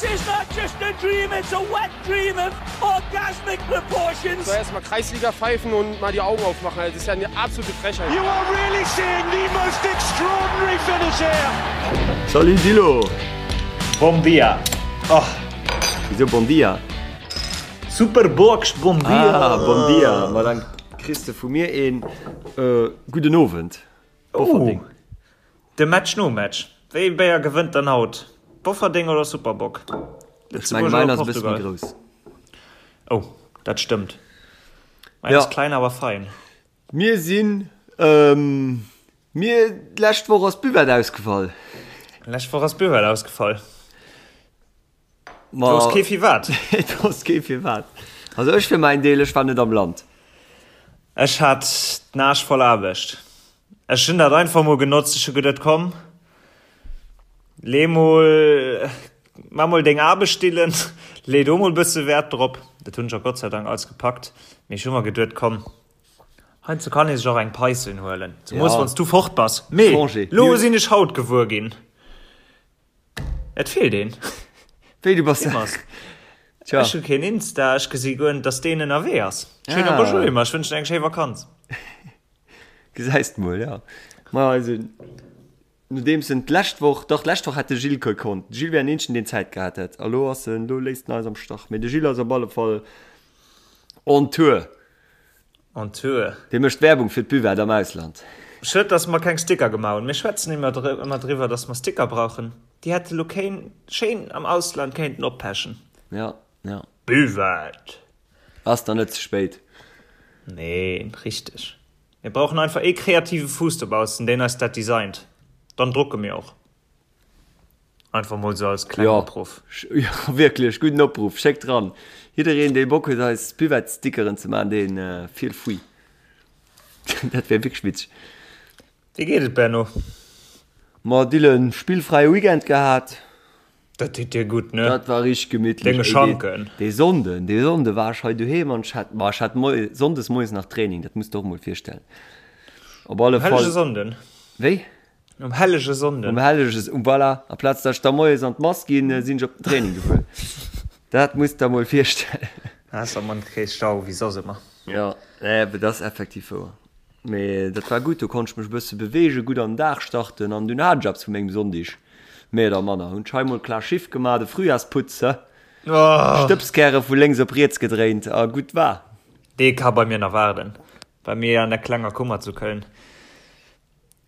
This is not just a dream, it's a wet dream of orgasmic proportions. So erstmal Kreisliga pfeifen und mal die Augen aufmachen. Das ist ja eine absolute Frechheit. You are really seeing the most extraordinary finish here. Salut Dilo! Bom dia! Oh. Wieso Bon dia? Super Box, bon dia! Ah, bon dia! Ma dann kriss de vu mir een äh, gudden Owend. Bofferding. Oh. De Match nom Match, Wéi ee Béier gewënnt dann haut? Bofferdeng oder Super Bock? Ech menge Lëtzebuerg mäin oder ass e bësse méi Portugal? grouss. Oh, dat stëmmt. Mäin Ja. ass klein awer fein. Mir sinn, ähm, mir, d'lescht Woch ass d'Buvette ausgefall. Lescht Woch ass d'Buvette ausgefall. Ma, Du wosst kee firwat. Et wosst kee firwat. Also ech fir mäin Deel, ech war net am Land. Ech hat den Aarsch voll Aarbecht. Ech hunn dat einfach mol genotzt. Ech hu geduet, komm, lee mol, maa mol deng Aarbecht, Dylan, lee do mol bësse Wäert drop. Dat hunn ech och Gott sei Dank alles gepackt. Mee ech hu mer geduet, komm, heiansdo kann ee sech och eng Paischen huelen, zemoos Ja. wann s du fort bass. Mee Congé. lo sinn ech haut gewuer ginn, et feelt een. Wéi, du bass. Tja. Ech hu keen Insta, ech gesi guer net, dass deen ënnerwee ass. Schéin Ah. Bonjour Emma, ech wënschen eng schéi Vakanz. Gesäis de mol, ja. Ma also, nodeems en d'lescht Woch, dach d'lescht Woch hätt de Gilles gekonnt. De Gilles wär en eenzegen, deen Zäit gehat hätt. A lo ass en, lo léisst en eis am Stach. Mee de Gilles ass op alle Fall on tour. On tour. Dee mécht Werbung fir d'Buvette am Ausland. Schued, dass mer keng Sticker gemaach hunn. Mir schwätzen ëmmer ëmmer driwwer, dass mer Sticker brauchen. Déi hätte lo kéin schéin am Ausland kéinten oppechen. Ja, ja. Buvette! Ass dann net ze spéit. Nee, richteg. Mir brauchen einfach ee kreative Fuuss dobaussen, deen eis dat designt. Dann drucke mir och. Einfach mol sou als klengen Opruff. Jo, wierklech, gudden Opruff. Schéckt ran. Jiddereen, dee Bock huet, eis Buvette-Stickeren ze maachen, dee feel free. Dat wär wierklech witzeg. Wéi geet et, Benno? Ma Dylan, spillfräie Weekend gehat. Dat deet dir gutt, ne? Dat war richteg gemittlech. Denge Schanken. Dee Sonnden, dee Sonnde war ech hei doheem an ech hat, ma ech hat moies, sonndes moies nach Training, dat muss de och mol virstellen. Op alle Um hellege Fall. Sonnden. Wéi? Um hellege Sonnden. Um hellege, um voilà, amplaz datt ech da moies an d'Mass ginn, sinn ech op den Training gefuer. Dat muss der mol virstellen. Ass am Mann kee Stau wéi soss ëmmer. Jo, nee, dat ass effektiv wouer. Mee dat war gutt, do konnt ech mech e bësse beweegen, gutt an den Dag starten an dunn hat ech eppes vu mengem Sonndig, méi oder manner. Hunn ech hei mol klar Schiff gemaach, de Frühjahrsputz, he? Stëbskäre vu lénks op riets gedréint a gutt war. Dee ka bei mir nach waarden, bei mir an der klenger Kummer zu Köln.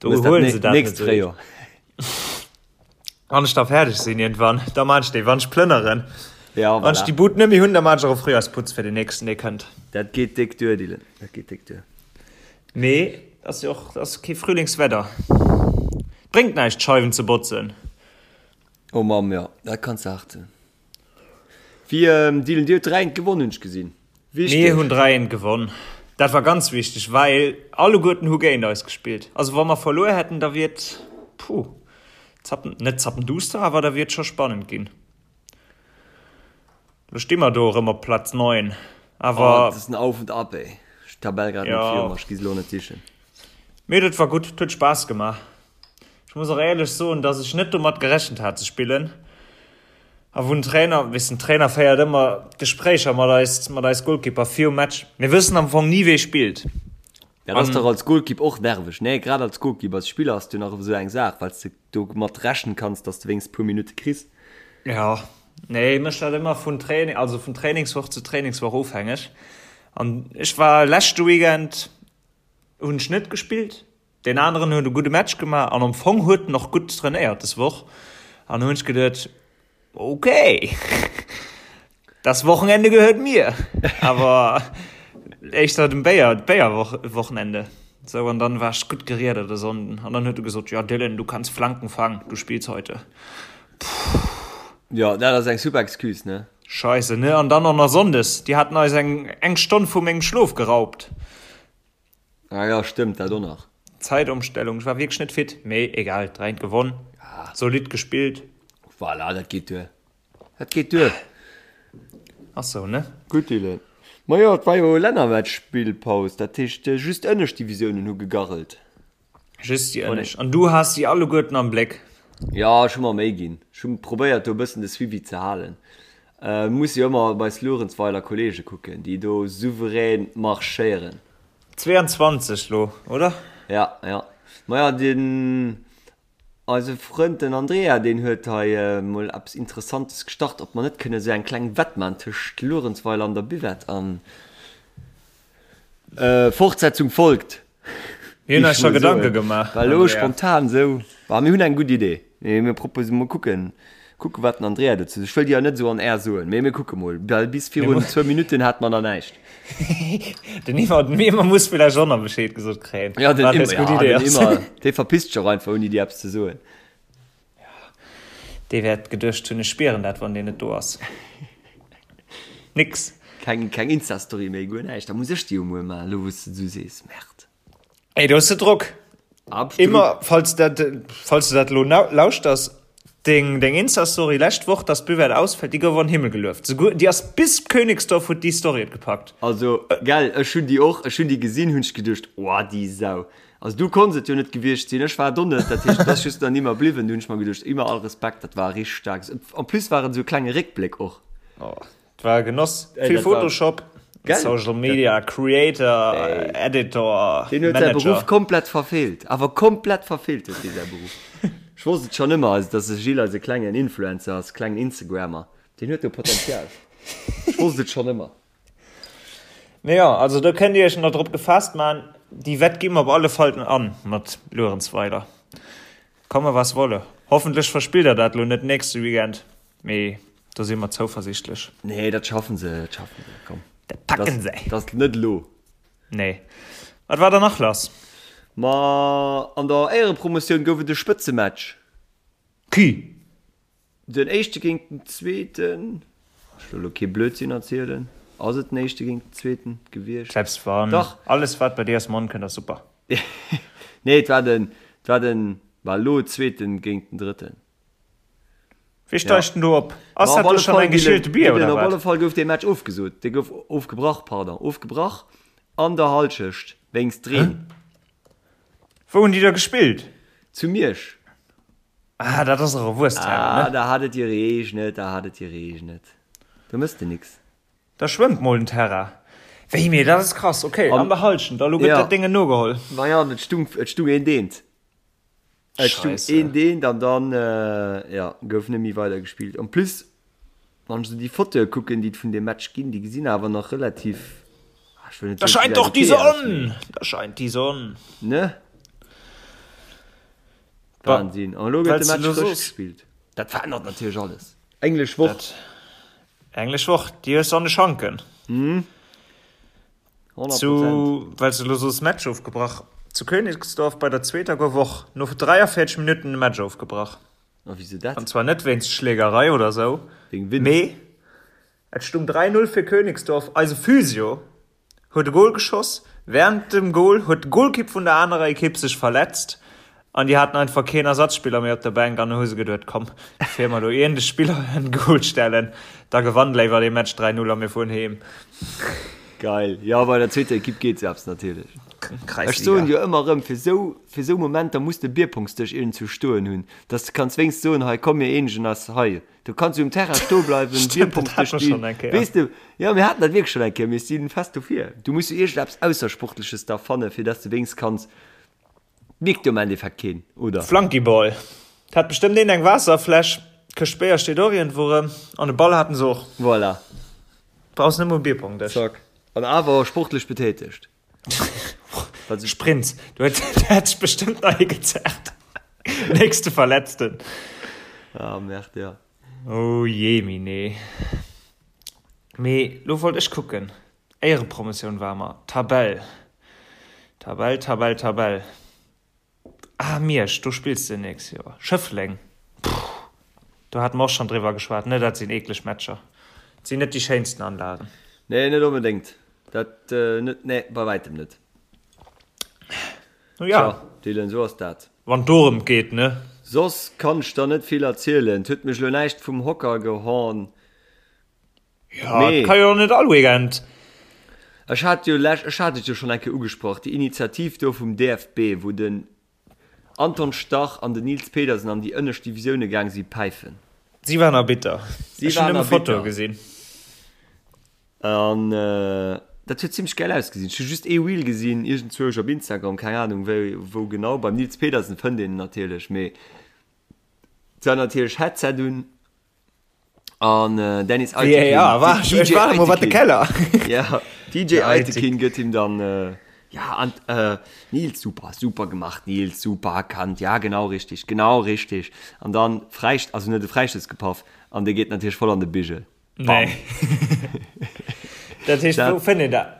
Do Hues dat huelen se dat net nächst esou. Fréijoer. Wann ech da fäerdeg sinn iergendwann, da maan ech déi, wann ech plënneren. Ja, Wann ech voilà. déi Bud net méi hunn, da maan ech och e Fréijoersputz fir den nächsten, dee kënnt. Dat geet déck duer, Dylan, dat geet déck duer. Mee ass jo och, ass kee Frühlingswedder. Bréngt näischt d'Scheiwen ze botzen. Oh Mamm, jo, dat kanns de hart soen. Wéi, Dylan, dir hutt 3 eent gewonn, hunn ech gesinn. Wichteg. Mir hunn 3 eent gewonn. Dat war ganz wichteg, well alleguerten hu géint eis gespillt. Also wa mer verluer hätten, da wier et, puh, zappen, net zappenduster, awer da wier et scho spannend ginn. Lo sti mer do erëm op Platz 9, Oh, awer. dat ass en Auf und Ab, ey. Ech hunn d'Tabell grad net Jo. vir mer, ech gi se elo net sichen. Mee dat war gutt, et huet Spaass gemaach. Ech muss och éierlech soen, dass ech net domat gerechent hat ze spillen. A wou den Trainer, weess den Trainer féiert ëmmer Gespréicher mat eis, mat eis Golkipper virum Match. Mir wëssen am Fong ni wee spillt. Dat ass dach als Golkipp och nerveg, nee? Grad als Golkipp, als Spiller ass du nach esou eng Saach, well s de domat rechnen kanns, dass de wéinst puer Minutte kriss. Jo, nee, mécht dat ëmmer vun Training, also vun Trainingswoch zu Trainingswoch ofhängeg. An ech war leschte Weekend hunn ech net gespillt, Deen aneren huet e gudde Match gemaach an am Fong huet en och gutt trainéiert des Woch. An hunn ech geduet, okay, das Wochenende gehört mir. Awer éischter dem Béier, d'Béierwochenende. Sou, an dann war ech gutt geriedert e Sonnden. An dann huet e gesot, ja Dylan, du kannst Flanken fangen, du spielst heute. Puh. Jo, dat ass eng super Excuse, ne? Scheisse, ne? An dann och nach Sonndes, déi haten eis eng eng Stonn vu mengem Schlof geraubt. Ah ja, stëmmt, dat och nach. Zäitomstellung, ech war wierklech net fit, mee egal, 3 eent gewonn, solid gespillt. Voilà, dat geet duer. Dat geet duer. Ass sou, ne? Gutt, Dylan. Majo, et war jo Lännermatch-Spillpaus, dat heescht just ënnescht Divisiounen hu gegarrelt. Just déi ënnescht. An du has si alleguerten am Bléck. Jo, ech hu mer Méi ginn. Ech hu probéiert do e bëssen de Suivi ze halen. Muss jo ëmmer op eis Luerenzweiler Kollege kucken, déi do souverän marschéieren. 22 lo, oder? Ja, ja. Maja, den eise Frënd den Andrea, deen huet hei mol eppes Interessantes gestart, ob mer net kënne sou eng kleng Wett man tëscht Luerenzweiler an der Buvette an Fortsetzung folgt. Mir hunn eis scho Gedanke gemaach. Well elo spontan esou, ma mir hunn eng gutt Idee. Mee mir propose mol kucken, kucke wat den Andrea dozou seet. Ech wëll déi jo net esou on air soen, mee mir kucke mol. Well bis virun zwou Minutten hate mer nach näischt. Den Iwwer, den Iwwer muss villäicht och nach Bescheed gesot kréien. Ja, den Iwwer, ja, den Iwwer, dee verpisst sech och einfach ouni dir eppes ze soen. Dee wäert geduecht hunn, ech spieren dat, wann deen net do ass. Nix. Keng, keng Insta-Story méi, guer näischt. Da muss ech déi jo muer maachen, elo wou s de et esou sees. Merde. Ey, do hues de Drock. Absolut. Immer, falls dat, falls du dat elo lauschters, deng, deng Insta-Story lescht Woch, dass d'Buvette ausfält, déi gouf an den Himmel gelueft. Souguer, déi ass bis Königsdorf huet déi Story et gepackt. Also, gell, ech hunn déi och, ech hunn déi gesinn, hunn ech geduecht, oh, déi Sau. Also du konns et jo net gewiescht sinn, ech war do net, dat heescht et ass just nach nimmer bliwwen. Du hunn ech mer geduecht, immer all Respekt, dat war richteg staark. En plus war et esou e klenge Réckbléck och. Oh, et war e Genoss. Ey, Vill dat war- Photoshop, Gell? Social Media, Creator, Ey. Editor, Deen huet säi Manager. Beruff komplett verfeelt, awer komplett verfeelt huet dee säi Beruff. Ech wosst et schonn ëmmer, also dass de Gilles eise klengen Influencer ass, klengen Instagrammer, deen huet do Potenzial. Ech wosst et schonn ëmmer. Mee jo, also do kënnt dir iech nach drop gefaasst man, déi Wett gi mer op alle Fall an mat Luerenzweiler. Komme was wolle. Hoffentlech verspillt der dat lo net nächste Weekend, mee do si mer zouversichtlech. Nee, dat schaffen se, dat schaffen se, komm. Dat packen se. Dat ass net elo. Nee. Wat war dann nach lass? Ma an der Éierepromotioun gouf et e Spëtzematch. Qui? Den éischte géint den zweeten, ech wëll elo kee Blödsinn erzielen, ass et den éischte géint den zweeten gewiescht? Selbst wann, Dach. alles wat bei dir aus dem Mond kënnt ass super. Nee, et war den, et war den, war elo zweeten géint den drëtten. Wee steigt denn do op? Ass dat do schonn eng geschielte Bier oder Op wat? alle Fall gouf dee Match ofgesot, dee gouf ofgebrach, pardon, ofgebrach an der Halschecht wéinst Reen. Wou hunn déi da gespillt? Zu Miersch. Ah, dat ass och e Wuesthären, Ah, ne? da hat et gereegnet, da hat et gereegnet. Do mëss de nix. Da schwëmmt mol den Terrain. Wéi, mee dat ass krass. Okay, an der Halschent, a lo gëtt Ja. dat Déngen nogeholl. Ma ja, an et stung, et stung een deent. Et stung Scheisse. een deent an dann, ja, gouf net méi weider gespillt. En plus, wann ech esou déi Fotoe kucken, déi et vun deem Match ginn, déi gesinn awer nach relativ, ah, ech wëll net Da soen, scheint se doch gesäit die okay aus, Sonn! mee, Da scheint die Sonn. ne? Wahnsinn. An elo gëtt de Match frësch gespillt. Dat verännert natierlech alles. Englesch Woch. Dat, Englesch Woch, déi hues du an de Schanken. Mhm. 100%. Zu, well s du elo soos Match ofgebrach, zu Königsdorf bei der zweeter gouf och no 43 Minutten de Match ofgebrach. A wisou dat? An zwar net wéinst Schlägerei oder sou, Wéinst Wind. mee et stung 3, 0 fir Königsdorf. Eise Physio huet e Gol geschoss. Wärend dem Gol huet de Golkipp vun der anerer Ekipp sech verletzt an déi haten einfach keen Ersatzspiller méi op der Bänk an hu se geduet, komm, bevir mer do iergend e Spiller an de Gol stellen, da gewannt léiwer dee Match 3, 0 a mir fueren heem. Geil. Jo, bei der zweeter Ekipp geet sou eppes natierlech. Ech Kreisliga. soen jo ëmmer erëm, fir sou, fir sou Momenter muss de Bierpongsdësch iergendzwou stoen hunn, dass de kanns wéinst soen, hei komm mir eenegen eis hei. Du kanns jo um Terrain stoe bleiwen, Stimmt, dat Bierpongsdësch hat mer schonn stinn. eng Kéier. Weess de, jo, mir haten dat wierklech schonn eng Kéier, mee ech si fest dofir. Du muss jo iergendeppes Aussersportleches da fannen, fir dass de wéinst kanns, mierkt jo am Endeffekt keen, oder? Flunkyball. Et hat bestëmmt een eng Waasserfläsch, d'Këscht Béier steet och iergendwou erëm an e Ball haten se och. Voilà. Brauchs net mol e Bierpongdësch. Zack. An awer sportlech betätegt. Sprints. Du huet hat sech bestëmmt nach ee gezerrt. Nächste Verletzten. Ah, merde, ja. Oh jee, mine. Mee lo wollt ech kucken. Éierepromotioun war mer. Tabell. Tabell, Tabell, Tabell. Ah, Miersch, do spills de nächst Joer. Schëffleng, puh, do hate mer och schonn driwwer geschwat, ne? Dat sinn eekleg Matcher. Dat sinn net déi schéinsten Anlagen. Nee, net onbedéngt. Dat net, nee, bei wäitem net. Nu ja. Tja, Dylan, esou ass dat. Wann et dorëm geet, ne? Soss kann ech der net vill erzielen. Et huet mech elo näischt vum Hocker gehorn. Ja, et ka jo och net all Weekend. Ech hat jo lech, ech hat et jo schonn eng Kéier ugesprach, déi Initiativ do vum DFB, wou den. Anton Stach an den Nils Pedersen an déi ënnescht Divisioune gaang si päifen. Si waren Arbitter. Si Ech hunn waren nëmme Fotoe Arbitter. gesinn. An dat huet zimmlech gäil ausgesinn. Ech hu just ee Reel gesinn, iergendzwousch op Instagram, keng Anung wéi, wou genau. Beim Nils Pedersen fënnt een en natierlech, mee et war natierlech Headset un an Dennis Eitekin, VAR, war ech, ech DJ war emol wat de Eitekin, Keller. ja, DJ Der Eitekin. Eitekin gëtt him dann, ja, an Nils, super, super gemacht, Nils, super erkannt, ja, genau richtig, genau richtig. An dann Fräist, also net e Fräistouss gepaff an dee geet natierlech voll an de Bigel. Nee. Dat heescht, wou fënnt een dat?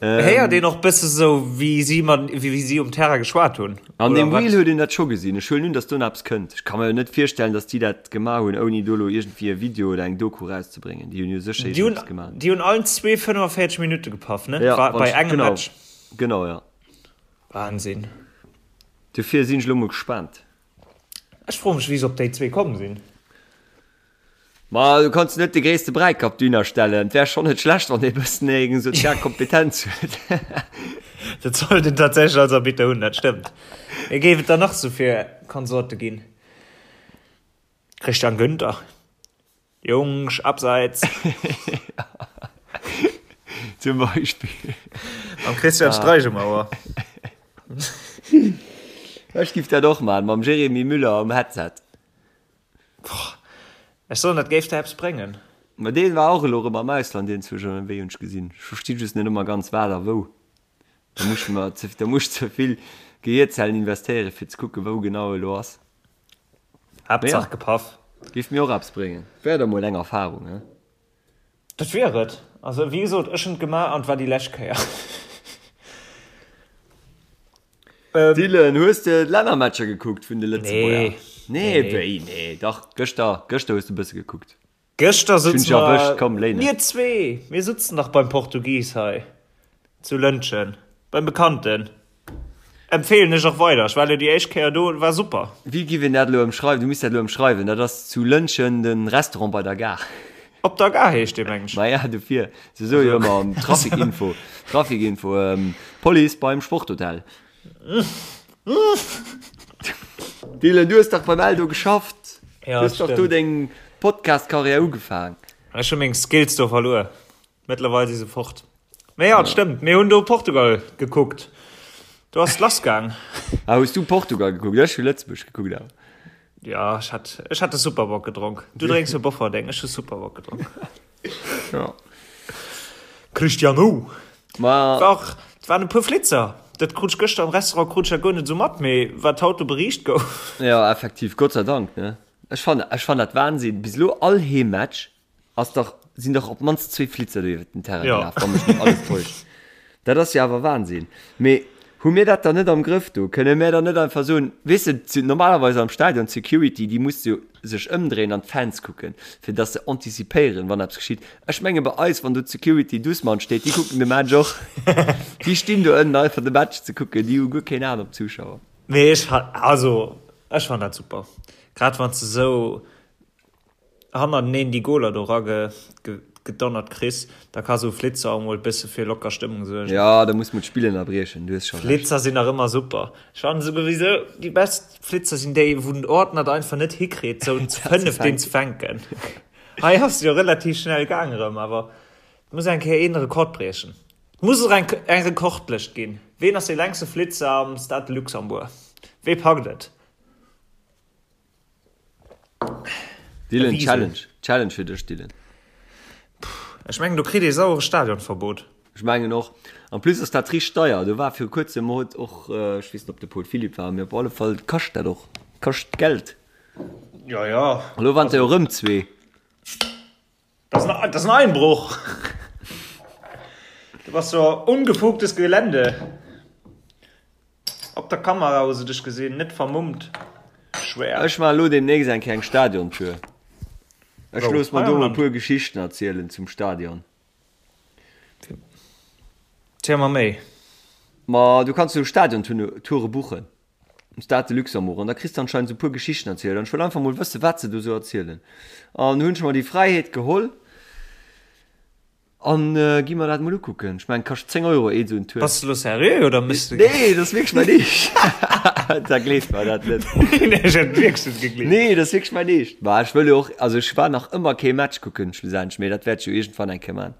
Héiert een och bësse sou, wéi si mat, wéi si um Terrain geschwat hunn? An Oder deem wat? Reel huet een dat scho gesinn. Ech huelen un, datt do nach eppes kënnt. Ech ka mer jo net virstellen, datt déi dat gemaach hunn, ouni do elo iergendwéi e Video oder eng Doku erauszebréngen. Déi hunn jo sécher Déi hunn, iergendeppes gemaach. déi hunn allen zwee 45 Minutte gepaff, ne? Ja, War wann bei ech, engem genau, Match. genau, ja. Wahnsinn. Dofir sinn ech elo mol gespaant. Ech froe mech, wéi se op déi zwee komm sinn. Ma du kanns net de gréisste Bräikapp dohinner stellen. Et wär schonn net schlecht, wann ee bëssen eng sozial Kompetenz huet. Dat sollt een tatsächlech als Arbitter hunn, dat stëmmt. Mee géif et der nach sou fir Konsorte ginn? Christian Günther, Jungs, abseits! Zum Beispill. Mam Christian Streich um Ouer. Ech giff dat och maachen, mam Jérémy Müller um Headset. Ech soen, dat géif der eppes bréngen. Ma deen war och elo rem am Ausland iergendzwousch ënnerwee, hunn ech gesinn. Ech versti just net ëmmer ganz wat a wou. Da muss ech mer ze, da muss ech ze vill Gehierzellen investéieren fir ze kucken wou genau e lo ass. Mee Haaptsaach ja, gepaff. géif mir och eppes bréngen. Wär da mol eng Erfahrung, he? Dat wier et. Also wéi gesot, ech hunn et gemaach an et war déi lescht Kéier. Dylan, hues de d'Lännermatcher gekuckt vun de Lëtzebuerger? Nee. Nee, wéi nee? Dach, gëschter, gëschter hues de e bësse gekuckt. Gëschter Ech hunn sutze dech erwëscht, mer, komm, léi net. mir zwee, mir sutzen dach beim Portugis hei zu Lëntgen, beim Bekannten. Empfehlen ech och weider. Ech war elo déi éischt Kéier do, war super. Wéi giff een dat elo ëmschreiwen? Du misst dat elo ëmschreiwen. Dat ass zu Lëntgen de Restaurant bei der Gare. Op der Gare heescht dee, meng ech. Maja, dofir. Se soe jo ëmmer Trafikinfo, Trafikinfo, Police beim Sporthotel. Dylan, du hues dach beim Eldo geschafft. Ja, Du hues dach do stimmt. deng Podcast-Karriär ugefaang. Ech hu meng Skills do verluer. Mëttlerweil si se fort. Mee ja, et stëmmt, mir hunn do Portugal gekuckt. Do ass et lass gaang. Ah, hues du Portugal gekuckt? Ech hu Lëtzebuerg gekuckt awer. Ja, ech hat, ech hat de Superbock gedronk. Du drénks jo Bofferdeng, ech hu Superbock gedronk. Ja. Cristiano! Ma. War och, et waren e puer Flitzer. Dat krut ech gëschter am Restaurant krut ech dat guer net esou mat, mee wat haut do beriicht gouf. Ja, effektiv, Gott sei Dank, ne? Ech fannen, ech fannen dat Wahnsinn. Bis elo all Heemmatch ass dach, sinn dach op d'mannst zwee Flitzer do iwwert den Terrain Ja. gelaf, wann mech net alles täuscht. Dat ass jo awer Wahnsinn. Mee hu mir dat dann net am Grëff do? Kënne mär dann net einfach soen, weess de, d'Se-, normalerweis am Stadion, d'Security, déi muss jo sech ëmdréien an d'Fans kucken, fir dass se antizipéieren, wann eppes geschitt. Ech menge bei eis, wann do d'Security doucement steet, déi kucken de Match och. Déi stinn do ënnen einfach de Match ze kucken, déi hu guer keen Aen op d'Zuschauer. Mee ech fa-, also ech fannen dat super. Grad wann s de esou hannerteneen déi Goler do ragedonnert kriss, da ka sou Flitzer och mol bësse fir locker Stëmmung suergen. Jo, da muss mol d'Spill ënnerbriechen, du hues scho Recht. Flitzer sinn nach ëmmer super. Ech fannen souwisou déi best Flitzer sinn déi, wou den Ordner et einfach net hikritt sou zu 5 deen ze fänken. Hei ass jo relativ schnell gaang erëm, awer et muss eng Kéier een Rekord briechen. Et muss och eng eng Rekordlëscht ginn. Ween ass dee längste Flitzer am Stade de Luxembourg? Wee packt et? Dylan, Challenge. Challenge fir dech, Dylan. Ech mengen, do kritt ee sauere Stadionverbot. Ech mengen och. En plus ass dat richteg deier. Do war viru kuerzem huet och, ech weess net, ob de Paul Philipp war, mee op alle Fall kascht dat och. Kascht Geld. Ja, ja. Elo waren se jo erëm zwee. Das ist ein, das ist ein Einbruch. Du warst so ungefugtes Gelände. Op der Kamera hu se dech gesinn, net vermummt. Schwer. Ech maachen elo demnächst eng kleng Stadiontour. Ech Wou? looss mer Hei do am mol e Land? puer Geschichten erzielen zum Stadion. Ziel mer méi. Ma du kanns jo Stadiontoure buchen um Stade de Luxembourg an da kriss de anscheinend esou puer Geschichten erzielt an ech wëll einfach mol wëssen, wat se do esou erzielen. An hunn ech mer déi Fräiheet geholl. An gi mer dat mol ukucken. Ech mengen, kascht 10 Euro ee sou en Tour. Bass de lo seriö oder mëss de. Nee, dat ass wierklech mäin Eescht. Da gleeft mer dat net. Nee, ech hätt wierklech net gegleeft. Nee, dat ass wierklech mäin Eescht. Ma ech wëll jo och, also ech war nach ëmmer kee Match kucken schlussendlech, mee dat wäert ech jo iergendwann eng Kéier man.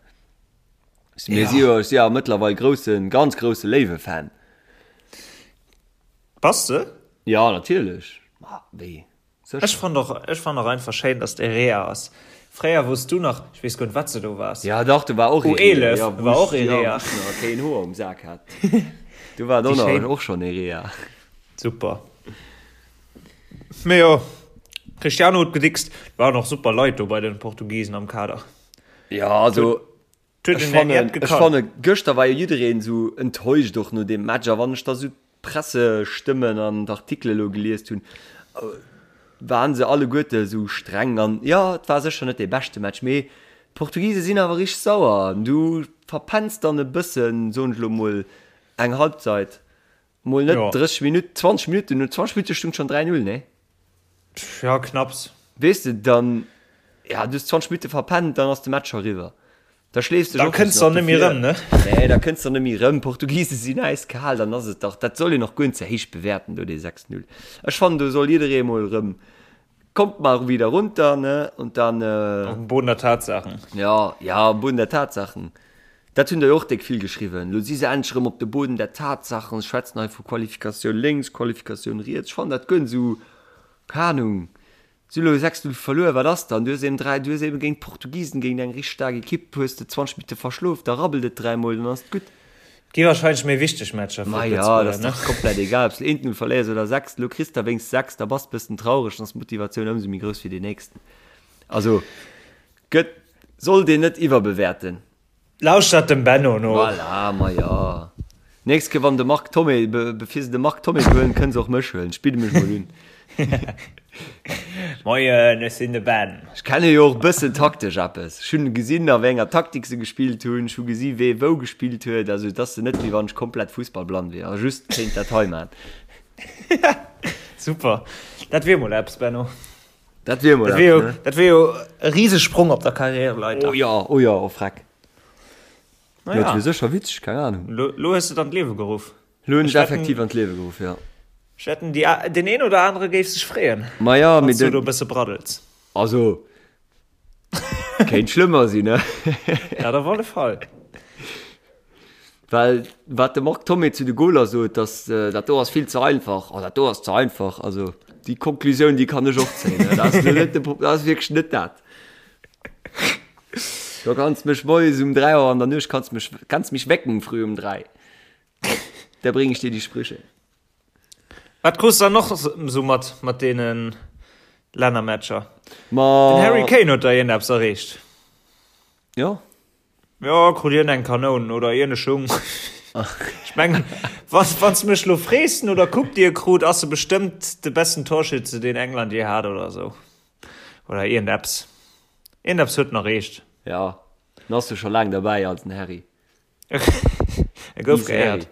Mir si jo, ech si jo mëttlerweil groussen, ganz grousse Léiwe-Fan. Bass de? Jo, natierlech. Ma wéi? Sécher. Ech fannt och, ech fannt och einfach schéin, dass de Rea ass. Fréier wous du nach, ech weess guer net wat se do waars. Ja dach, do war och ee Rea. U11 ja, war och ee Rea. Ja, wou ech nach keen Hoer um Sak hat. Do war et och schonn ee Rea. Super. Mee jo, Cristiano huet gedickst. Waren och super Leit do bei den Portugiesen am Kader. Ja, also Ech fannen, ech fanne gëschter war jo jiddereen esou enttäuscht och no deem Match. A wann ech da sou d'Pressestëmmen an d'Artikele lo geliest hunn, waren se alleguerte esou streng. An jo, et war sécher net dee beschte Match, mee d'Portugise sinn awer richteg sauer. An du verpenns dann e bëssen, soen ech lo mol, eng Halbzeit. Mol net 30 Minutten, 20 Minutten, no 20 Minutte stung schon 3-0, nee? Ja, knapps. Weess de, dann, ja, du hues 20 Minutte verpennt, dann ass de Match scho riwwer. Da schleefs dech och Da kënns de net méi rëm, ne? Nee, da kënns de net méi rëm. D'Portugise sinn äiskal, dann ass et dach, dat soll een och guer net ze héich bewäerten do, dee 6-0. Ech fannen, do soll jidderee mol rëm Kommt mal wieder runter, ne? Und dann. Äh, Auf dem Boden der Tatsachen. Ja, ja, am Boden der Tatsachen. Dat hunn der jo och déck vill geschriwwen. Lo si se endlech erëm op de Boden der Tatsachen, schwätzen hei vu Qualifikatioun lénks, Qualifikatioun riets. Ech fannen dat guer net esou, keng Ahnung. Si hu lo 6, 0 verluer, wat ass dann? Du hues eben 3, du hues eben géint d'Portugisen, géint eng richteg staark Ekipp, hues de 20 Minutte verschlof, da rabbelt et dräimol, dann ass et gutt. Gi wahrscheinlech méi wichteg Matcher fir d'Lëtzebuerger, ne? Ma jo, dat ass dach komplett egal, ob s de eent Null verléiers oder 6. Elo kriss de wéinst 6, da bass de bëssen traureg, dann ass d'Motivatioun ëmsou méi grouss fir deen nächsten. Also gëtt, sollt een net iwwerbewäerten. Lauschtert dem Benno no. Voilà, ma jo. Nächst Kéier wann de Marc Thomé, bevir se de Marc Thomé huelen, kënne se och mech huelen. Ech bidde mech mol un. Moien, ech sinn de Ben. Ech kenne jo och bëssen taktesch eppes. Ech hunn gesinn, a wéi enger Taktik se gespillt hunn. Ech hu gesi wee wou gespillt huet. Also et ass net wéi wann ech komplett fussballblann wier a just kéint dat hei man. Super, dat wier mol eppes, Benno. Dat wier mol eppes, ne? Dat wier jo e Risesprong op der Karriereleiter. Oh jo, oh jo, oh freck. Na ja. Dat wier sécher witzeg, keng Ahnung. Lo, lo hues de et an d'Liewe geruff. Lo hunn ech et effektiv an d'Liewe geruff, jo. Ech wetten, déi, deen een oder anere géif sech freeën, Ma ja, wann s du do e bësse braddels. Also, kéint schlëmmer sinn, ne? Dat op alle Fall. Well wat de Marc Thomé zu de Goler sot, dass dat do ass vill ze einfach, oh dat do ass ze einfach, also déi Konklusioun, déi kann ech och zéien, dat ass net de, dat ass wierklech net dat. Do kanns mech moies um 3 Auer an der Nuecht kanns mech kanns mich wecken früh um 3. Da bring ich dir die Sprüche. Wat krus dann noch so mat mat deenen Lännermatcher? Ma Den Harry Kane huet da iergendeppes erreecht. Ja. Ja, krut hien eng Kanoun oder iergende Schung. Ech mengen, wann wann s mech lo frees no der Coupe déi e krut, ass e bestëmmt de besten Torschütze deen England je hat oder sou. Oder iergendeppes. Iergendeppes huet en erreecht. Ja, en ass jo scho laang derbäi als den Harry. E gouf geéiert.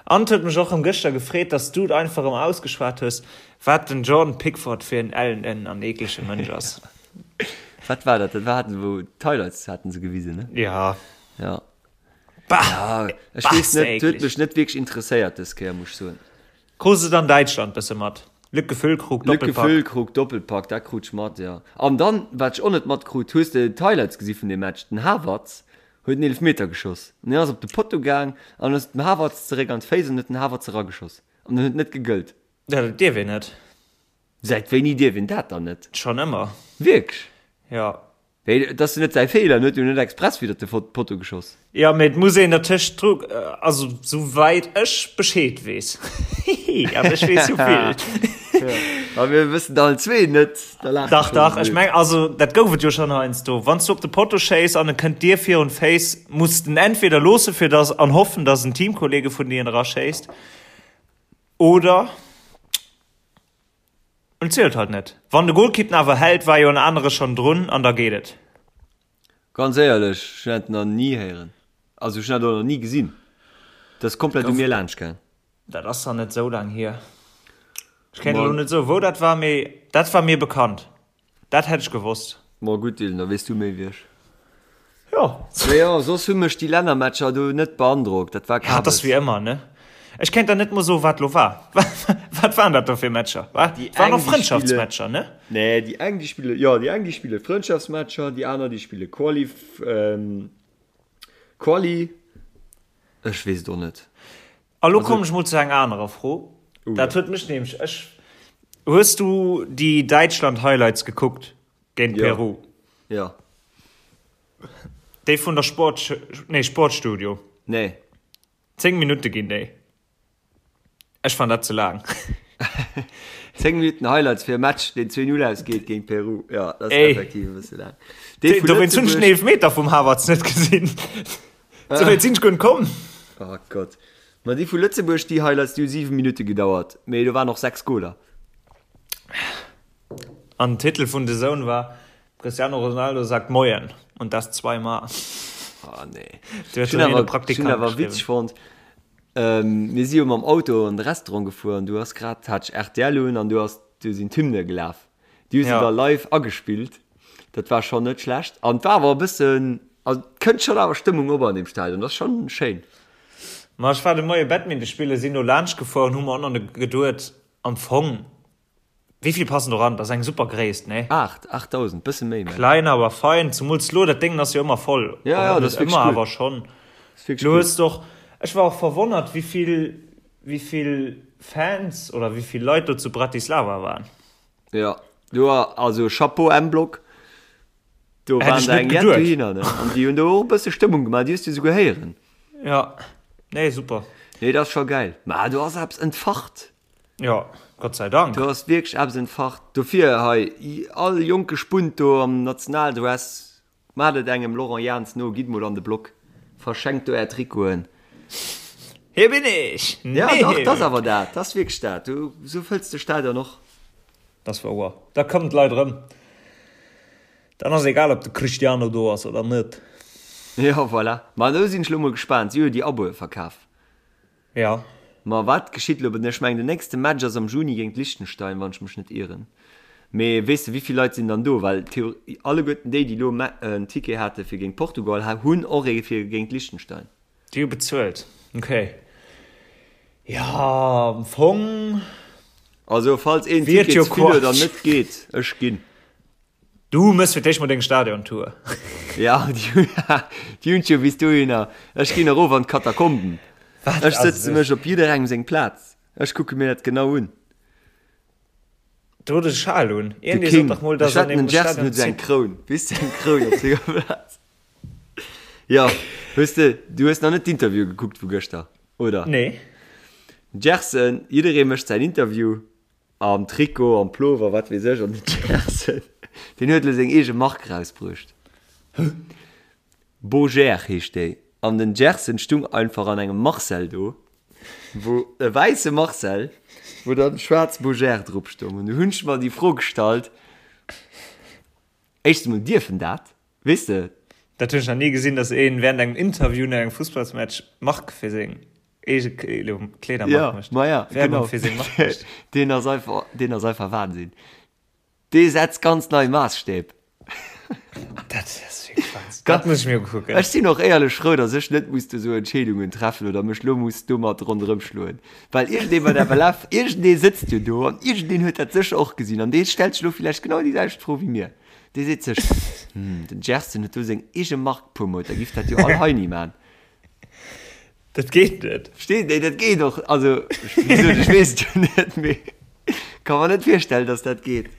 An et huet mech och rëm gëschter gefreet, dass du et einfach rëm ausgeschwat hues, wat den Jordan Pickford fir en ellenen an eeklege Mënsch ass. Wat war dat? Dat war haten wou d'Highlights haten se gewisen, ne? Ja. Ja. Bah! Ja, ech weess net, huet mech net wierklech interesséiert dës Kéier, muss ech soen. Krus et an Däitschland bësse mat? Lücke Füllkrug, Doppelpack. Lücke Füllkrug, Doppelpack, dat krut ech mat, jo. An dann, wat ech och net matkrut, hues de d'Highlights gesi vun deem Match? Den Havertz huet en Eelefmeter geschoss an deen ass op de Potto gaang an ass dem Havertz zeréck an d'Féiss an huet den Havertz erageschoss an en huet net gegëllt. Ja, dat dierf een net. Säit wéini dierf een dat dann net? Schonn ëmmer. Wierklech? Jo. Mee et ass jo net säi Feeler, en huet jo net express widder de Potto geschoss. Jo, mee et muss een dertëscht dru, also sou wäit ech Bescheed weess, hihi, an ech weess jo vill. A mir wëssen allen zwee net, da laache Dach, dach, ech meng, also dat gouf et jo schonn heiansdo, wann s du op de Potto schéiss an e kënnt dir virun d'Féiss, muss de en entweder loosse fir dass, an hoffen, dass en Teamkollege vun dir en eraschéisst, oder. En zielt halt net. Wann de Golkipp en awer hält, war jo en anere schon drun an da geet et. Ganz éierlech, ech hunn dat nach ni héieren. Also ech hunn dat och nach ni gesinn. Dat ass komplett u mir laanscht gaang. Dat ass nach net esou laang hier. Ech kéint elo net soen, wou dat war, mee dat war mir bekannt. Dat hätt ech gewosst. Ma gutt, Dylan, da weess du méi wéi ech. Jo. Mee jo, soss hu mech déi Lännermatcher do net beandrockt. Dat war Ja, et ass Kabes. wéi ëmmer, ne? Ech kéint der net mol soen, wat lo war. Wat waren dat do fir Matcher? Wa? Déi Et waren eng, och déi spille, Frëndschaftsmatcher, ne? nee, déi eng, déi spille, jo, déi eng, déi spille Frëndschaftsmatcher, déi aner, déi spille Quali, ähm, Quali, ech weess et och net. A lo Also, kommen ech mol zu enger anerer Fro. oh Dat jo. huet mech nämlech, ech, hues du déi Däitschland-Highlights gekuckt géint Jo, Peru? jo. Déi vun der Sport, nee, Sportstudio? Nee. 10 Minutte ginn déi. Ech fan dat ze laang. 10 Minutten Highlights fir e Match, deen 2-0 ausgeet géint Peru. Jo, dat ass Ey. effektiv e bësse laang. Dee vu Dowéinst hunn ech den Lëtzebuerg. Eelefmeter vum Havertz net gesinn. Sou wäit sinn ech guer net komm. Oh Gott. Ma déi vu Lëtzebuerg, déi Highlights, déi hu 7 Minutte gedauert, mee do waren och 6 Goler. An den Titel vun The Zone war Cristiano Ronaldo sagt Moien und das zweimal. Oh nee. Du huet Ech hunn dann een awer, ech hunn Praktikant awer geschriwwen. witzeg fonnt, ähm, mir si jo mam Auto an de Restaurant gefuer an du ass grad, hat ech rtl un an du ass, du sinn d'Hymne gelaf. Déi hu se Ja. da live agespillt. Dat war schonn net schlecht. An et war awer e bëssen, also et kënnt schonn awer Stëmmung op an deem Stadion. Dat ass schonn schéin. Ma ech war de Moie Badminton spillen, sinn do laanscht gefuer an hu mer och nach geduet, am Fong, Wéi vill passen do ran? Dat ass eng super Gréisst, nee? 8, 8000, bësse méi, mengen ech. Klein awer fein, zumools lo, dat Déngen ass jo ëmmer voll. Ja, ja, Oder dat net ass wierklech ëmmer, cool. awer schonn. Dat ass wierklech Lo cool. hues de och, ech war och verwonnert, wéi vill, wéi vill Fans oder wéi vill Leit do zu Bratislava waren. Ja, do war, also Chapeau M-Block, do Hätt waren ech der net eng jett geduet. dohinner, ne? An déi hunn do och e bësse Stëmmung gemaach, déi hues du souguer héieren. Ja, nee, super. Nee, dat ass scho gäil. Mä do ass eppes entfacht. Jo, Gott sei Dank. Do ass wierklech eppes entfacht. Dofir hei, all jonke Spunt do am Nationaldress, maacht et engem Laurent Jans no, gitt mol an de Block, verschenkt do är Trikoten. Hier bin ich! Ja, dach, 't ass awer dat, 't ass wierklech dat. Du, sou fëlls de Stadion och. Dat ass wouer. Da kommen d'Leit erëm. Dann ass egal, ob de Cristiano do ass oder net. Jo, voilà. Ma do sinn ech lo mol gespaant. Si hu jo déi Aboe verkaf. Jo. Ma wat geschitt elo? Ech mengen den nächste Match ass am Juni géint Liechtenstein, wann ech mech net ieren. Mee weess de wéivill Leit sinn dann do? Well alleguerten déi, déi elo en Ticket hate fir géint Portugal, hunn och ee fir géint Liechtenstein. Déi hu bezuelt, ok. Jo, am Fong. Also falls een Ticket ze vill huet an net geet, ech ginn. Du mëss fir d'éischt mol deng Stadiontour. Ja, déi hunn ech jo bis dohinner. Ech ginn erof an d'Katakomben. Ech sëtze mech op jidderengem seng Plaz. Ech kucke mir dat genau un. Do huet e Schal un. De King. Ech wetten, den Gerson huet esou eng Kroun. Weess de, eng Kroun op senger Plaz. Jo, hues de, du hues nach net d'Interview gekuckt vu gëschter, oder? Nee. Gerson, jidderee mécht säin Interview. Am Trikot, am Plover, wat weess ech, an den Gerson, deen huet elo seng eege Mark rausbruecht. Boger heescht déi. An den Gerson stung einfach an engem Marcel do, wou, e wäisse Marcel, wou dann schwaarz Boger drop stung. An du hunn ech mer déi Fro gestallt, éischtens emol, dierf en dat? Weess de? Dat hunn ech nach ni gesinn, dass een während engem Interview no engem Fussballsmatch Mark fir seng eege Kleedermark Ja, mécht. ma ja, Werbung genau. fir seng Mark mécht. Deen ass einfach, deen ass einfach Wahnsinn. Dee setzt ganz nei Maasstäb. Dat ass wierklech Wahnsinn. Dat muss ech mir ukucken. Ech sinn och éierlech frou, dass ech net muss do sou Entscheedungen treffen oder mech lo muss domat ronderëm schloen. Well iergendee bei der FLF, iergendee sëtzt jo do an iergendeen huet dat sécher och gesinn an dee stellt sech lo villäicht genau déi selwecht Fro wéi mir. Dee seet sech, Hm, den Gersten huet do seng eege Mark promot, da giff dat jo all Heini man. Dat geet net. Verstees, nee, dat geet och, also, wéi gesot, ech weess et jo net, mee ka mer net virstellen, dass dat geet.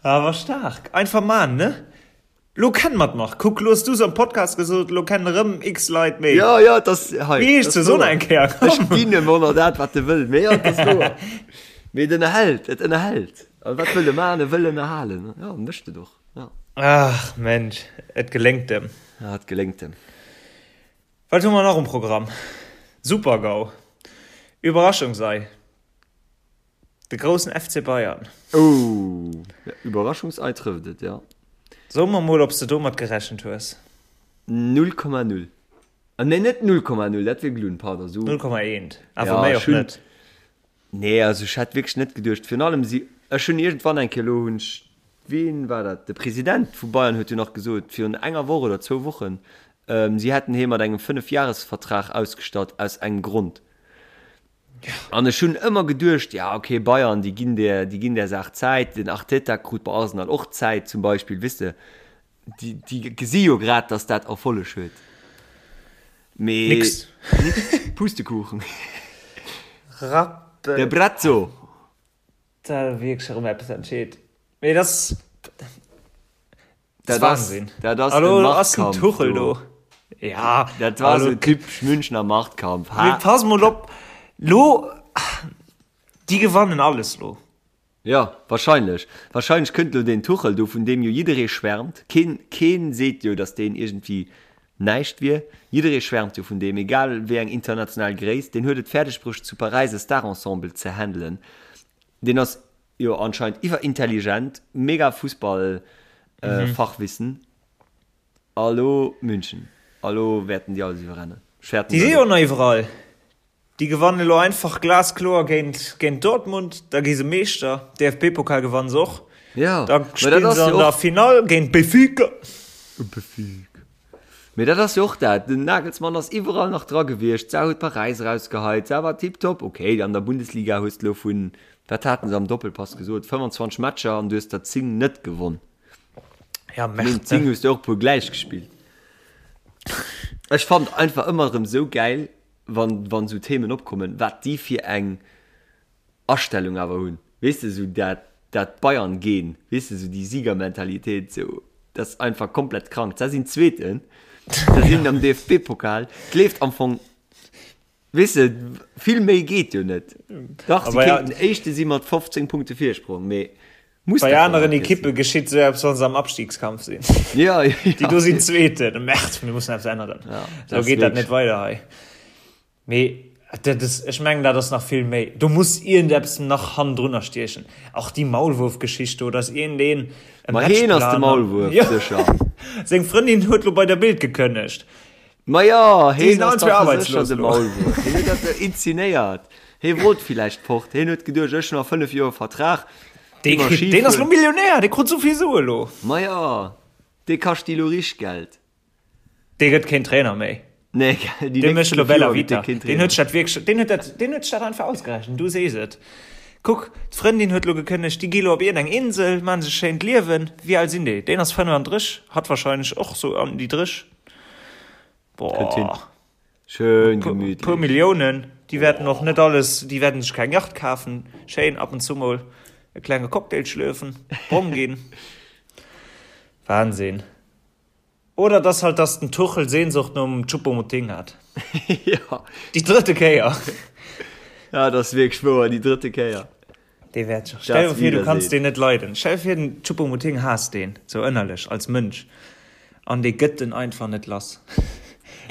Awer staark, einfach man, ne? Lo kennen mer d'Mark. Kuck, lo hues du se am Podcast gesot, lo kennen erëm x Leit méi. Jo, jo, et ass hei. Wéi heescht se? So nach eng Kéier, komm. Ech ginn em och nach dat, wat e wëll, mee jo, et ass wouer. Mee et ënnerhält, et ënnerhält. A wat wëll e man? E wëll ënnerhalen. Jo, mécht et och, jo. Ach Mensch, et geléngt em. Ja, et geléngt em. Wat hu mer nach um Programm? Super-GAU, Überraschungsei, de groussen FC Bayern. Oh, Überraschungsei trëfft et, jo. So mer mol, ob s de domat gerechent hues. 0,0. Ah nee, net 0,0, dat wier gelunn, pardon. 0,1, awer méi och net. Nee, also ech hätt wierklech net geduecht. Virun allem si, ech hunn iergendwann eng Kéier, elo hunn ech. Wien war dat? De President vu Bayern huet jo nach gesot, virun enger Woch oder zwou Wochen, si hätten hee mat engem Fënnefjahresvertrag ausgestatt, aus engem Grond. An ech hunn ëmmer geduecht, ja okay, Bayern, déi ginn där, déi ginn där Saach Zäit. Den Arteta krut bei Arsenal och Zäit zum Beispill, weess de. Déi, déi gesi jo grad, datt dat Erfolleg huet. Mee Nix. Nix. Pustekuchen. Rappel. De Brazzo. Da wierklech erëm eppes entscheet. Mee dat ass, Dat dat ass, Wahnsinn. dat ass Hallo, e ass den Machtkampf Tuchel do. do. Ja, Dat war hallo. sou typesch Münchner Machtkampf. Mee Ha? pass mol op, lo, déi gewannen alles lo. Ja, wahrscheinlech. Wahrscheinlech kënnt lo deen Tuchel do, vun deem jo jidderee schwärmt. Keen, keen seet jo, datt deen iergendwéi näischt wier. Jidderee schwärmt jo vun deem, egal wéi eng international Gréisst. Deen huet et fäerdeg bruecht, zu Paräis e Star-Ensemble ze handelen. Deen ass jo anscheinend iwwerintelligent, mega Fussball-Fachwissen. A lo München. A lo wäerten déi alles iwwerrennen. Ech fäerten Déi si dat jo och. nach iwwerall. Déi gewannen elo einfach glaskloer géint géint Dortmund, da gi se Meeschter. DFB-Pokal gewannen se och. Ja, Da mä dat spillen ass se an jo der och. Finall géint Benfica. Benfica. Mee dat ass jo och dat, den Nagelsmann ass iwwerall nach dra gewiescht, d'Sau huet Paräis erausgeheit, d'Sau war tiptop. Okay, an der Bundesliga hues de elo vun, wat haten se am Doppelpass gesot, 25 Matcher an du hues der 10 net gewonn. Ja, Vun Merde, den 10 ne? hues de och e puer gläich gespillt. Ech fannen einfach ëmmer erëm esou gäil, wann, wann esou Themen opkommen, wat déi fir eng Astellung awer hunn, weess de, esou dat, dat Bayern-Gen, weess de, esou déi Siegermentalitéit, esou, dat ass einfach komplett krank. Se sinn Zweeten, se sinn am DFB-Pokal, et leeft am Fong, weess de, vill méi geet jo net. Dach, si kéinten Éischte si mat 15 Punkte Virsprong, mee muss Bei dat dann aneren nach Ekippe sinn? geschitt esou eppes, wann se am Abstiegskampf sinn. Ja, ja. Déi do sinn Zweeten, Merde, mir mussen eppes änneren, Ja, esou dat ass geet dat net wierklech. weider hei. Mee dat ass, ech mengen, dat ass nach vill méi. Do muss iergendeppes nach hannendrunner stiechen. Och déi Maulwurfgeschicht do, dass iergendeen e Ma heen ass de Matchplan. Maulwuerf, Jo, sécher. seng Frëndin huet lo bei der Bild gekënnegt. Ma jo, Déi heen sinn ass allen zwee dach sécher arbeitslos de lo. Maulwuerf. Heen huet dat jo inzenéiert. Hee wollt villäicht fort. Heen huet geduecht, ech hunn nach 5 Joer Vertrag, Dee gi mer kritt, deen ass lo Skifueren. Millionär, dee krut esou vill Sue lo. Ma jo, dee kascht déi lo richteg Geld. Dee gëtt keen Trainer méi. Nee, gell, déi Dee nächst mécht lo 5 Bella Joer gëtt dee Vita. keen Deen Trainer. huet sech dat wierklech, deen huet dat, deen huet sech dat einfach ausgerechent, du sees et. Kuck, d'Frëndin huet lo gekënnegt, déi gi lo op iergendeng Insel, maachen sech e schéint Liewen. Wéi al sinn déi? Deen ass 35, hatt wahrscheinlech och sou an déi 30. Kënnt hin. Boah. Schön Puer, puer gemütlich. Milliounen, déi wäerten och net alles, déi wäerten sech keng Yacht kafen, schéin ab und zu mol e klenge Cocktail schlürfen, brong ginn. Wahnsinn. Oder dass halt dass den Tuchel Sehnsucht nom Choupo-Moting hat. Ja. Déi drëtte Kéier. Ja, dat ass wierklech wouer, déi drëtte Kéier. Dee wäert scho. Stell dir vir, du kanns deen net leiden. Stell dir vir, den Choupo-Moting haasst deen, sou ënnerlech, als Mënsch. An dee gëtt en einfach net lass.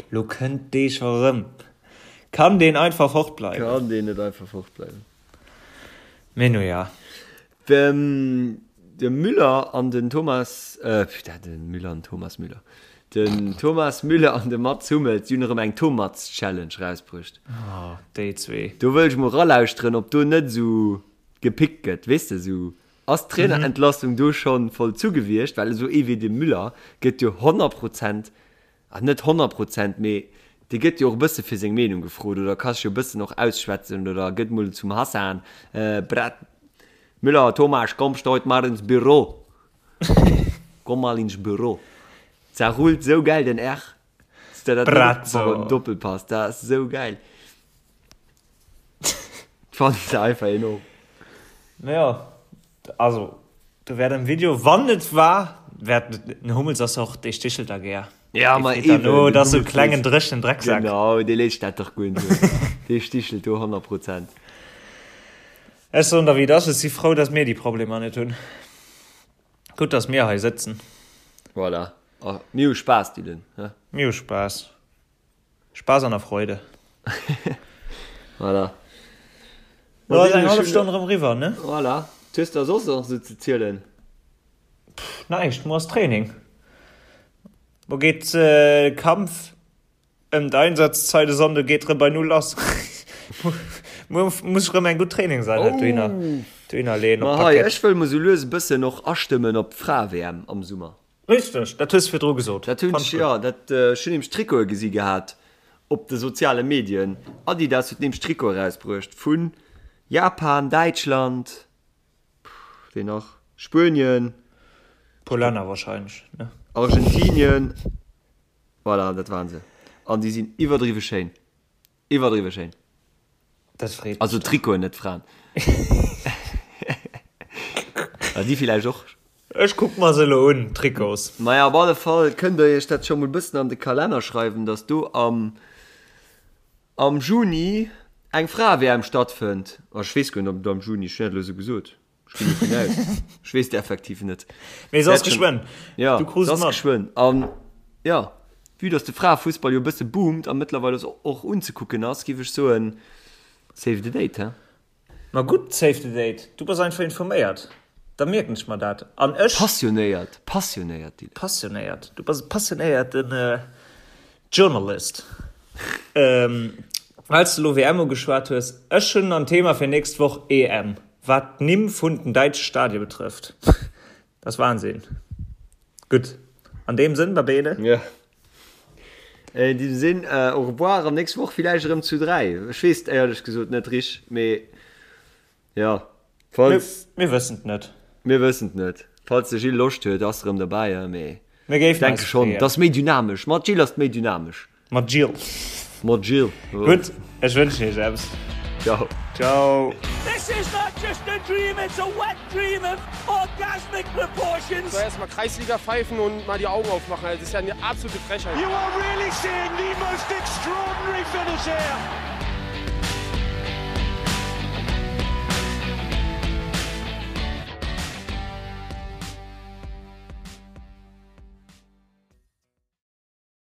Lo kënnt dee scho rëm. Kann deen einfach fortbleiwen? Kann deen net einfach fortbleiwen? Mee nu ja. Dem de Müller an den Thomas, äh, putain, den Müller an Thomas Müller. Den Thomas Müller an de Mats Hummels, déi hunn erëm eng Tomats-Challenge rausbruecht. Oh, déi zwee. Do wëll ech mol ralauschteren, ob do net esou gepickt gëtt, weess de, esou, ass d'Trainerentlassung do schonn vollzu gewiescht? Well esou ee wéi de Müller gëtt jo 100 Prozent Ah, net 100%, mee dee gëtt jo och e bësse fir seng Meenung gefrot oder ka sech jo e bëssen och ausschwätzen oder gëtt mol zum Hassan, Brett, Müller, Thomas, kommst du heute mal ins Büro? Komm mal ins Büro. Zerrullt sou gäil den R. Hues de dat net Bratzo. op Doppelpass, dat ass sou gäil. Fannen se einfach enorm. Jo, also do wäert am Video, wann et war, wäert den Hummels ass och, dee stichelt da gär. Ja, Dee ma freet dann eben, no, den dat ass sou e Hummels klengen léisst, dréchenen Drecksak. genau, dee léisst dat dach guer net no. Dee stichelt do 100 Prozent. Ech soen der wéi et ass, ech si frou, datt mir déi Problemer net hunn. Gutt, datt mir hei sëtzen. Voilà. A mir hu Spaass, Dylan, he? Mir hu Spaass. Spaß an der Freude. Voilà. Lo ass eng hallef Stonn erëm eriwwer, ne? Voilà. Wat hues de soss nach esou ze zielen? Pff, näischt. Muer ass Training. Muer geet de Kampf ëm d'Einsatzzeit e Sonnde geet erëm bei Null lass. Muer muss ech erëm eng gutt Trainingseinheit dohinner. Dohinner leeën op Ma hei, d'Parkett. ech wëll mol sou lues e bëssen och astëmmen op d'Frae-WM am Summer. Richteg, dat hues de virdru gesot. Dat hunn Fand ech, ech gutt. jo, dat, ech hunn nämlech Trikote gesi gehat op de soziale Medien. Adidas huet nämlech Trikote erausbruecht vu Japan, Däitschland, wee nach, Spuenien, Puer Länner wahrscheinlech, ne? Argentinien, voilà, dat waren se. An déi sinn iwwerdriwwe schéin. Iwwerdriwwe schéin. Dat freet mech Also dann. Trikoten, net d'Fraen. Ah, déi villäicht och. Ech kuck mer se elo un, d'Trikots. Maja, op alle Fall kënnt der iech dat scho mol bëssen an de Kalenner schreiwen, dass do am am Juni eng Frae-WM stattfënnt. Ah, ech weess guer net, ob et am Juni, ech hunn dat elo esou gesot. Ech ginn dovun aus. Ech weess et effektiv net. Mee se ass geschwënn. Ja, Du krus se et ass mat. geschwënn. An ja, vue dass de Fraefussball jo e bësse boomt a mëttlerweil och unzekucken ass, géif ech soen, save the date, he? Ma gutt, save the date. Du bass einfach informéiert. Da mierken ech mer dat. An ech. Passionéiert, passionéiert, Dylan. Passionéiert. Du bass e passionéierten Journalist. Well s de elo WM ugeschwat hues, ech hunn en Thema fir nächst Woch, EM. Wat d'Nimm vun den däitsche Stadie betrëfft, dat ass Wahnsinn. Gutt, an deem Sënn, Babele. Jo, in diesem Sinn, au revoir an nächst Woch villäicht erëm zu 3. Ech weess et éierlech gesot net rich, mee jo, falls. Mir wëssen et net. Mir wëssen et net. Falls de Gilles Loscht huet, ass erëm derbäi, mee Mir géifen denke eis schonn, freeën. et ass méi dynamesch. Mat Gilles ass et méi dynamesch. Mat Jill. Mat Jill. Gutt, ech wënschen iech eppes. Ciao. Ciao. This is not just a dream, it's a wet dream of orgasmic proportions. So erstmal Kreisliga pfeifen und mal die Augen aufmachen. Also das ist ja eine absolute Frechheit. You are really seeing the most extraordinary finish here.